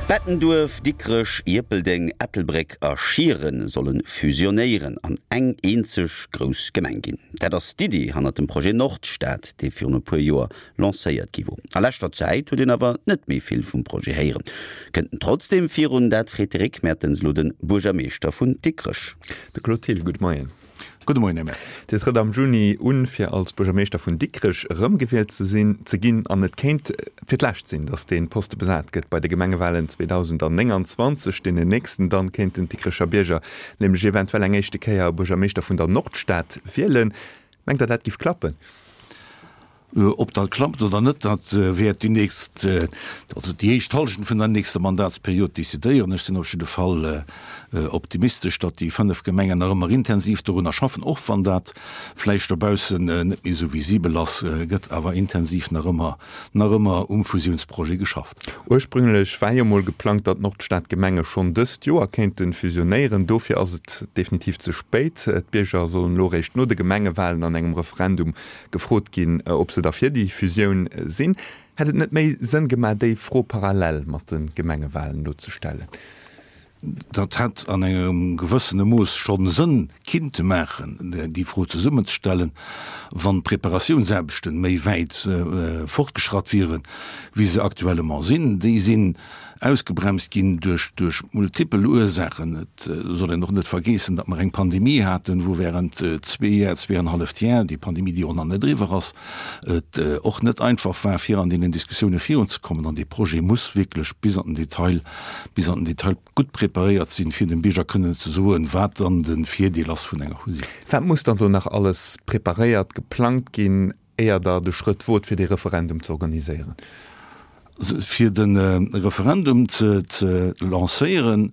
Bettenduerf, Dikrech, Ierpeldeng, Ettelbréck a Schieren solle fusionéieren an eng eenzeg grouss Gemeng ginn. Dat ass d'Iddi hannert dem Projet Nordstad, dee virun e puer Joer lancéiert gi wor. A leschter Zäit huet een awer net méi vill vum Projet héieren. Kënnt en trotzdeem virun? Dat freet de Rick Mertens elo de Buergermeeschter vun Dikrech. De Claude Thill, gudde Moien. Gudde Moien, Här Merz. Dir trëtt am Juni un, fir als Buergermeeschter vun Dikrech erëmgewielt ze sinn, ze ginn. An et kéint fir d'lescht sinn, datt dee Poste besat gëtt bei de Gemengewalen 2029, deenen nächsten. Dann kéinten d'Dikrecher Bierger nämlech eventuell eng éischte Kéier e Buergermeeschter vun der Nordstad wielen. Mengt Der, dat giff klappen? Ob dat klappt oder net, dat wäert déi nächst, also déi éischt Hallschent vun der nächster Mandatsperiod decidéieren. Ech sinn op jidde Fall optimistesch, datt déi 5 Gemengen nach ëmmer intensiv dorunner schaffen, och wann dat vläicht dobaussen net méi esou visibel ass, gëtt awer intensiv nach ëmmer, nach ëmmer um Fusiounsprojet geschafft. Ursprünglech war jo mol geplangt, datt d'Nordstadgemenge schonn dëst Joer kéinte fusionéieren. Dofir ass et definitiv ze spéit. D'Bierger sollen elo eréischt no de Gemengewalen an engem Referendum gefrot ginn, ob se da fir déi Fusioun sinn. Hätt et net méi Sënn gemaach, déi Fro parallel mat de Gemengewalen elo ze stellen? Dat hätt an engem gewëssene Mooss schonn Sënn kinnte maachen, déi Fro zesummenzestellen, wann d'Preparatiounsaarbechten méi wäit fortgeschratt wieren, wéi se actuellement sinn. Déi sinn ausgebremst ginn duerch duerch multipel Ursaachen. Et soll een och net vergeessen, datt mer eng Pandemie haten, wou während zwee Jar, zweeanenhalleft Jar, déi Pandemie, déi och nach net eriwwer ass, et och net einfach war, fir an deenen Diskussioune virunzekommen. An dee Projet muss wierklech bis an den Detail, bis an den Detail gutt preparéiert sinn, fir dem Bierger kënnen ze soen, wat dann de Virdeel ass vun enger Fusioun. Wat muss dann do nach alles preparéiert, geplangt ginn, éier Der de Schrëtt wot, fir dee Referendum ze organiséieren? Fir de Referendum ze lancéieren,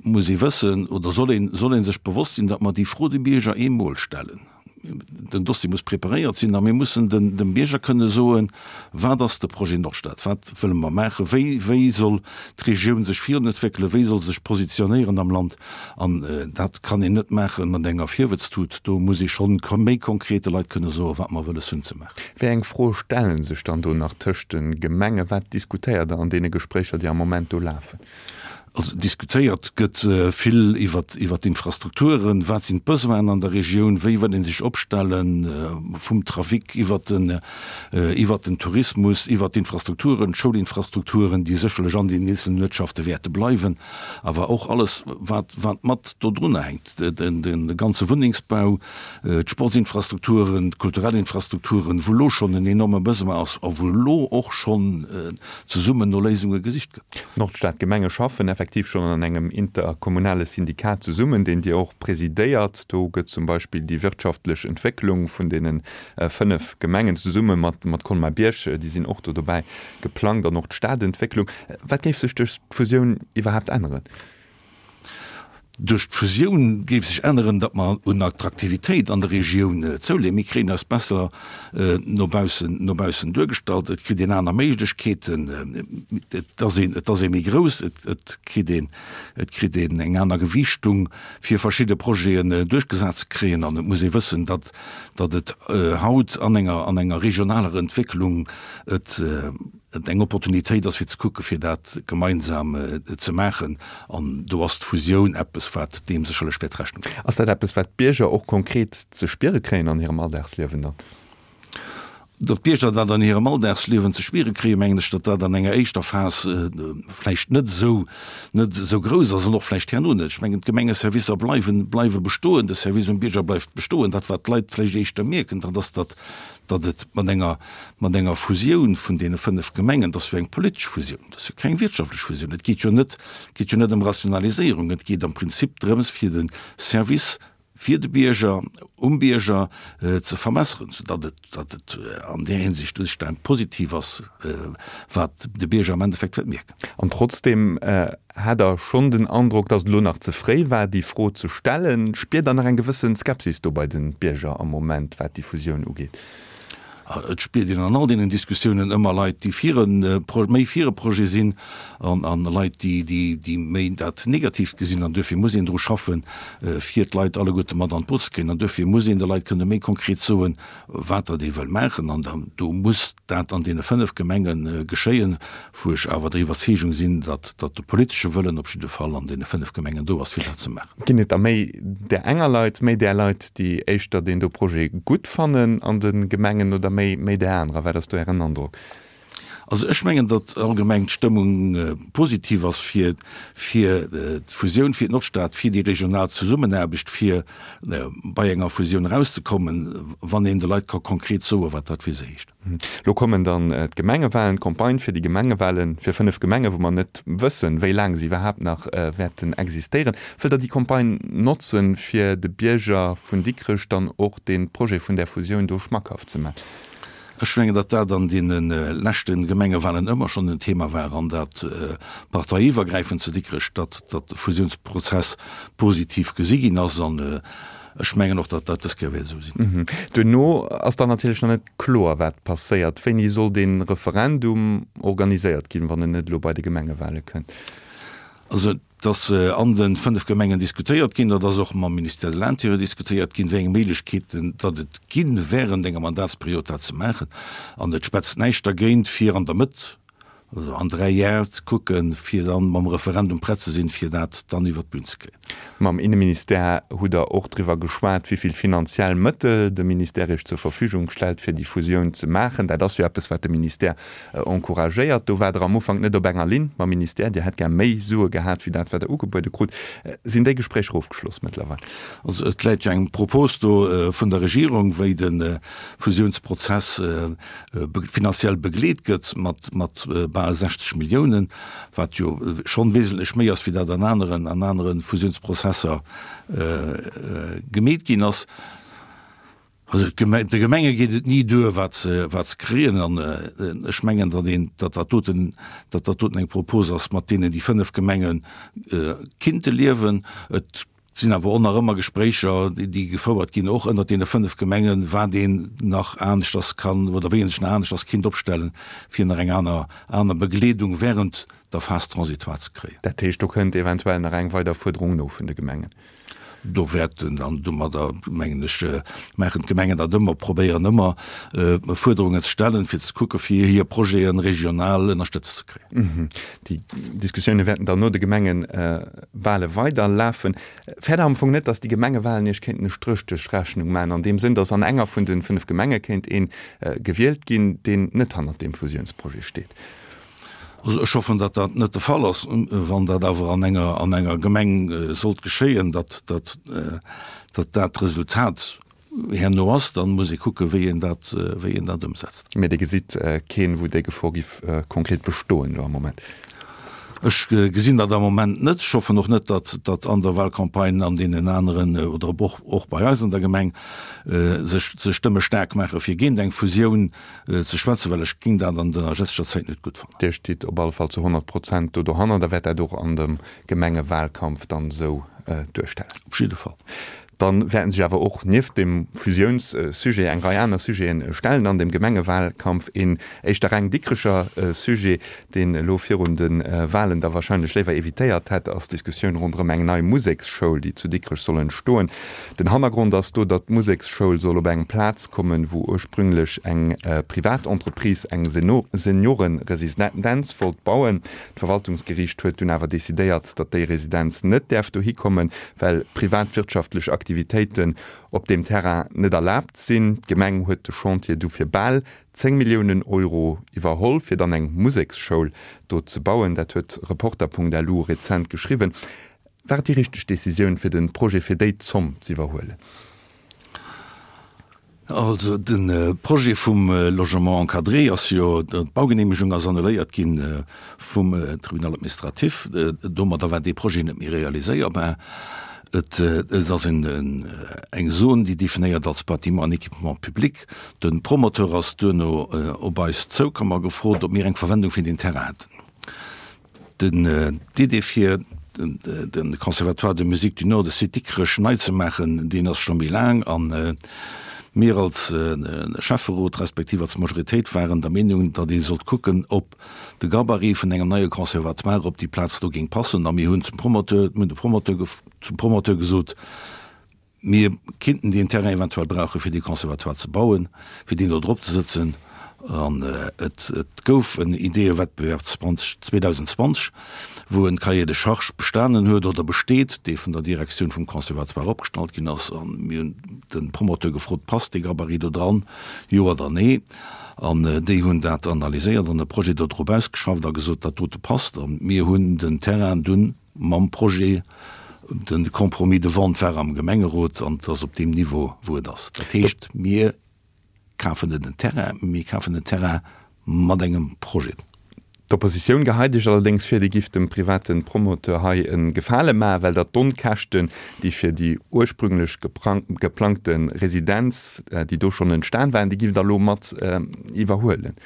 muss ee wëssen oder soll een, soll ee sech bewosst sinn, datt mer déi Fro de Bierger eemol stellen. Den Dossier muss preparéiert sinn a mir mussen dem Bierger kënne soen, Wat ass de Projet Nordstad? Wat wëlle mer maachen? Wéi, wéi soll d'Regioun sech virunentwéckelen? Wéi soll se sech positionéieren am Land? An dat kann een net maache mat enger Virwëtztut. Do muss ee scho méi konkret de Leit kënne soen, wat mer wëlles hunn ze maachen. Wéi eng Froe stelle sech dann do nach tëscht de Gemengen? Wat diskutéiert Der an deene Gespréicher, déi am Moment do lafen? Also diskutéiert gëtt vill iwwer d'Infrastrukturen, wat sinn d'Besoinen an der Regioun, wéi wëll ee sech opstellen, vum Trafic iwwer den iwwer den Tourismus, iwwer d'Infrastrukturen, d'Schoulinfrastrukturen, déi sécherlech an den eenzelnen Uertschafte wäerte bleiwen, awer och alles wat wat mat dodrunner hänkt, de ganze Wunnengsbau, d'Sportsinfrastrukturen, d'kulturell Infrastrukturen, wou elo schonn en enorme Besoin ass a wou elo och schonn zesummen no Léisunge gesicht gëtt. D'Nordstadgemenge schaffen effektiv schonn an engem interkommunale Syndikat zesummen, deen Dir och presidéiert. Do gëtt zum Beispill déi wirtschaftlech Entwécklung vun deene 5 Gemengen zesumme mat Colmar-Bierg, déi sinn och do dobäi, geplangt an och d'Stadentwécklung. Wat géif sech duerch d'Fusioun iwwerhaapt änneren? Duerch d'Fusioun géif sech änneren, datt mer un Attraktivitéit an der Regioun zouleeën. Mir kréien eis besser no baussen, no baussen duergestallt. Et kritt een aner Méiglechkeeten. Et ass een, et ass ee méi grouss. Et, et kritt een, et kritt een eng aner Gewiichtung, fir verschidde Projeten duerchgesat ze kréien. An et muss ee wëssen, datt, datt et haut an enger, an enger regionaler Entwécklung et, et eng Opportunitéit ass fir ze kucke fir dat gemeinsam ze maachen an do ass d'Fusioun eppes wat deem sécherlech wäert Rechnung droen. Ass dat eppes wat d'Bierger och konkret ze spiere kréien an hirem Alldagsliewen dann? Datt d'Bierger dat an hirem Alldagsliewen ze spiere kréien, mengen ech, datt dat an enger éischter Phas vläicht net esou net esou grouss ass an och vläicht herno net. Ech mengen d'Gemengeservicer bleiwen bleiwe bestoen, de Service um Bierger bleift bestoen. Dat wat d'Leit vläicht éischter mierken, dat ass, datt datt et mat enger, mat enger Fusioun vun deene 5 Gemengen, dat ass jo eng politesch Fusioun, dat ass jo keng wirtschaftlech Fusioun, et geet jo net, et geet jo net ëm Rationaliséierung, et geet am Prinzip drëms fir de Service fir de Bierger, um Bierger ze verbesseren, soudatt et, datt et an där Hinsicht u sech dann positiv ass, wat de Bierger am Endeffekt wäert mierken. An trotzdeem hat Der schonn den Androck, datt et elo nach ze fréi war, déi Fro ze stellen. Spiert Der nach eng gewësse Skepsis do bei de Bierger am Moment, wat déi Fusioun ugeet? Et spiert een an all deenen Diskussiounen ëmmer Leit, déi fir e, méi fir e Projet sinn an a Leit, déi, déi, déi méi dat Negatiivt gesinn. An duerfir muss een dru schaffen, fir d'Leit alleguerte mat an d'Boot ze kréien. An duerfir muss een de Leit kënne méi konkret soen, wat datt ee wëll maachen. An dann, do muss dat an deene 5 Gemenge geschéien, wou ech awer der Iwwerzeegung sinn, datt, datt de politesche Wëllen op jidde Fall an deene 5 Gemengen do ass, fir dat ze maachen. Ginn et der méi där enger Leit, méi där Leit, déi éischter deen do Projet gutt fannen an de Gemengen oder méi, méi där anerer? Wat ass do Ären Androck? Also ech mengen, datt allgemeng d'Stëmmung positiv ass fir, fir d'Fusioun, fir d'Nordstad, fir déi regional Zesummenaarbecht, fir bei enger Fusioun erauszekommen, wann een de Leit ka konkret soen, wat dat fir se heescht. Lo kommen dann d'Gemengewalen, d'Campagne fir déi Gemengewalen fir 5 Gemengen, wou mer net wëssen, wéi laang se iwwerhaapt nach wäerten existéieren. Wëllt Der déi Campagne notzen, fir de Bierger vun Dikrech dann och dee Projet vun där Fusioun do schmackhaft ze man? Ech mengen, datt dat an deene leschte Gemengewalen ëmmer schonn en Thema war an dat parteiiwwergräifend zu Dikrech, datt de Fusiounsprozess positiv gesi ginn ass. An Ech mengen och, datt dat dës Kéier wäert esou sinn. Duerno ass dann natierlech nach net kloer, wat passéiert. Wéini soll dee Referendum organiséiert ginn, wann en net elo bei de Gemengewale kënnt? Also et ass an de 5 Gemengen diskutéiert ginn, dat ass och mam Ministère de l'Intérieur diskutéiert ginn, wéi eng Méiglechkeeten datt et ginn, während enger Mandatsperiod dat ze maachen. An et schwätzt näischt dergéint, fir an der Mëtt Also an 3 Jar ze kucken, fir dann mam Referendum prett ze sinn, fir dat dann iwwert d'Bün ze kréien. Mam Inneministère hutt Der och driwwer geschwat, wéi vill finanziell Mëttel de Ministère Iech zur Verfügung stellt, fir déi Fusioun ze maachen. Dat ass jo eppes, wat de Ministère encouragéiert. Do waart Der am Ufank net op enger Linn mam Ministère. Dir hätt gär méi Sue gehat, wéi dat, wat Der ugebuede krut. Sinn déi Gespréicher ofgeschloss mëttlerweil? Also et läit jo eng Propos do vun der Regierung, wéi de Fusiounsprozess finanziell begleet gëtt mat mat bal 60 Milliounen, wat jo schonn wesentlech méi ass wéi dat an aneren an anere Fusiounsprozesser gemeet ginn ass. Also de Gemenge geet et ni duer wat se wat se kréien an ech mengen, datt een datt dat doten datt dat doten eng Propos ass, mat deenen déi 5 Gemenge kinnte liewen. Et Et sinn awer och nach ëmmer Gespréicher, déi gefouert ginn, och ënnert deene 5 Gemengen, wat een nach aneschters kann oder wéi een sech nach aneschters kinnt opstellen, fir nach eng aner, aner Begleedung während der Phase transitoire ze kréien. Dat heescht, do kënnt eventuell nach eng weider Fuerderung no vun de Gemengen? Do wäerten dann domadder, mengen ech, maachen d'Gemengen dat ëmmer, probéieren ëmmer, Fuerderungen ze stellen, fir ze kucken, fir hir Projete regional ënnerstëtzt ze kréien. Déi Diskussioune wäerten dann no de Gemengewale weiderlafen. Fäert Der am Fong net, datt déi Gemengewalen Iech kéinten e Stréch duerch d'Rechnung maachen, an deem Sënn, datt an enger vun de 5 Gemenge kéint ee gewielt ginn, deen net hannert deem Fusiounsprojet steet? Also ech hoffen, datt dat net de Fall ass. Wann dat awer an enger an enger Gemeng sollt geschéien, datt datt dat d'Resultat herno ass, dann muss ee kucken, wéi een dat, wéi een dat ëmsetzt. Mee Dir gesitt keen, wou déi Gefor giff konkret bestoen elo am Moment? Ech gesinn dat am Moment net. Ech hoffen och net, datt, datt an der Wahlcampagne an deenen aneren oder och, och bei eis an der Gemeng sech, sech Stëmme staark maache fir géint eng Fusioun ze schwätzen, well ech géing dat an der jetzeger Zäit net gutt fannen. Dir stitt op alle Fall zu 100 Prozent do dohannert a wäert dat och an dem Gemengewahlkampf dann esou duerstellen? Op jidde Fall. Dann wäerten sech awer och nieft dem Fusiounssujet eng Rei aner Sujeten stellen an dem Gemengewahlkampf. Een éischter reng Dikrecher Sujet, deen elo virun de Wahlen da wahrscheinlech léiwer evitéiert hätt, ass d'Diskussioun ronderëm eng nei Museksschoul, déi zu Dikrech soll entstoen. Den Hannergrond ass do, datt d'Museksschoul soll op eng Plaz kommen, wou ursprünglech eng privat Entreprise eng Seniorenresidenz wollt bauen. D'Verwaltungsgeriicht huet dunn awer decidéiert, datt déi Residenz net däerf dohi kommen, well privatwirtschaftlech Aktivitéiten op deem Terrain net erlaabt sinn. D'Gemeng huet de Chantier du fir bal 10 Milliounen Euro iwwerholl, fir dann eng Museksschoul do ze bauen. Dat huet Reporter.lu rezent geschriwwen. War et déi richteg Decisioun, fir de Projet fir déi Zomm z'iwwerhuelen? Also de Projet vum Logement encadré ass jo, d'Baugeneemegung ass annuléiert gi vum Tribunal administratif. Domadder war dee Projet net méi realiséierbar. Et ass eng Zon, déi definéiert als Bâtiment en équipement public. De Promoteur ass duerno op eis zoukomm a gefrot, ob mir eng Verwendung fir deen Terrain hätten. Den D'Idee fir de Conservatoire de musique du Nord de Site Dikrech nei ze maachen, deen ass scho méi laang. An. Mir als Schäfferot respektiv als Majoritéit waren der Meenung, datt ee sollt kucken, ob de Gabarit vun engem neie Conservatoire op déi Plaz do géing passen. A mir hunn zum Promoteur, mir hunn de Promoteur, zum Promoteur gesot, Mir kinnten deen Terrain eventuell brauche fir dee Conservatoire ze bauen, fir deen do drop ze sëtzen. An et gouf en Ideeëwettbewerb 2020, wou e Cahier de charges bestanen huet oder besteet, dee vun der Direktioun vum Conservatoire opgestallt ginn ass. A mir hunn de Promoteur gefrot, Passt dee Gabarit do dran, jo oder nee? An déi hunn dat analyséiert an e Projet do drop ausgeschafft a gesot, dat dote passt. A mir hunn den Terrain dunn Mam Projet, de Compromis de vente war am Gemengerot an et ass op deem Niveau, wou et ass. Dat heescht, mir kafen net en Terrain, mir kafen en Terrain mat engem Projet. D'Oppositioun geheit Iech allerdéngs vir, Dir gifft dem private Promoteur hei e Gefale maachen, well Der d'Onkäschten, déi fir déi ursprünglech geplangte Residenz, déi do schonn entstan waren, déi gifft Der elo mat iwwerhuelen.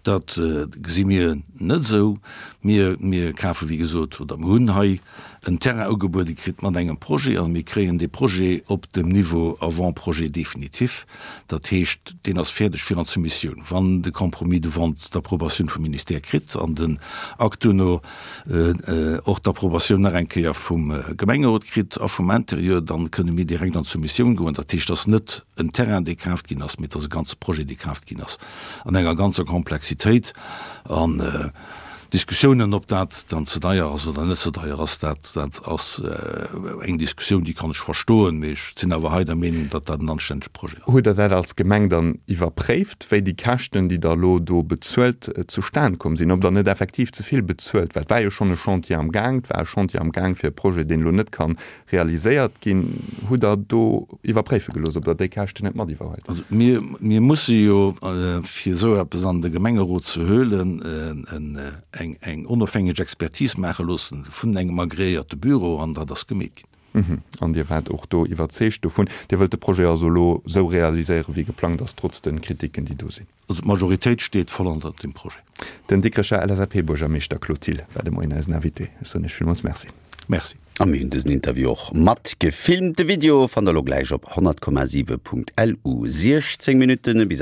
Dat gesi mir net esou. Mir, mir kafe wéi gesot, oder mir hunn hei en Terrain ugebuede kritt mat engem Projet a mir kréien dee Projet op dem Niveau Avant-projet définitif. Dat heescht, deen ass fäerdeg fir an d'Soumissioun, wann de Compromis de vente d'Approbatioun vum Ministère kritt an den Akt duerno och d'Approbatioun nach eng Kéier vum Gemengerot kritt a vum Interieur, dann kënne mir direkt an d'Soumissioun goen. Dat heescht, et ass net en Terrain, dee kaaft ginn ass, mee et ass e ganze Projet, dee kaaft ginn ass an enger ganzer Komplexitéit. An Diskussiounen, ob dat dann ze deier ass oder net ze deier ass, dat dat ass eng Diskussioun, déi kann ech verstoen, mee ech sinn awer hei der Meenung, datt dat en anstännege Projet ass. Hutt Der dat als Gemeng dann iwwerpréift, wéi déi Käschten, déi Der elo do bezuelt, zustan komm sinn? Ob Der net effektiv ze vill bezuelt? Well et war jo schonn e Chantier am Gaang, et war e Chantier am Gaang fir e Projet, deen elo net ka realiséiert ginn. Hutt Der do iwwerpréife gelooss, ob Der déi Käschten net mat iwwerhuelt? Also mir, mir musse jo, fir esou eppes an de Gemengerot ze huelen, eng, eng onofhängeg Expertise maache loossen vun engem agreéierte Büro, an dat ass gemeet ginn. An Dir waart och do iwwerzeegt dovun. Dir wëllt de Projet also elo esou realiséieren, wéi geplangt ass, trotz de Kritiken, déi do sinn? Also d'Majoritéit steet voll hannert deem Projet. Den Dikrecher LSAP-Buergermeeschter Claude Thill war de Moien eisen Invité. Ech soen Iech villmools Merci. Merci. A mir hunn dësen Interview och mat gefilmt. De Video fannt der elo gläich op 100,7.lu. 16 Minutten bis.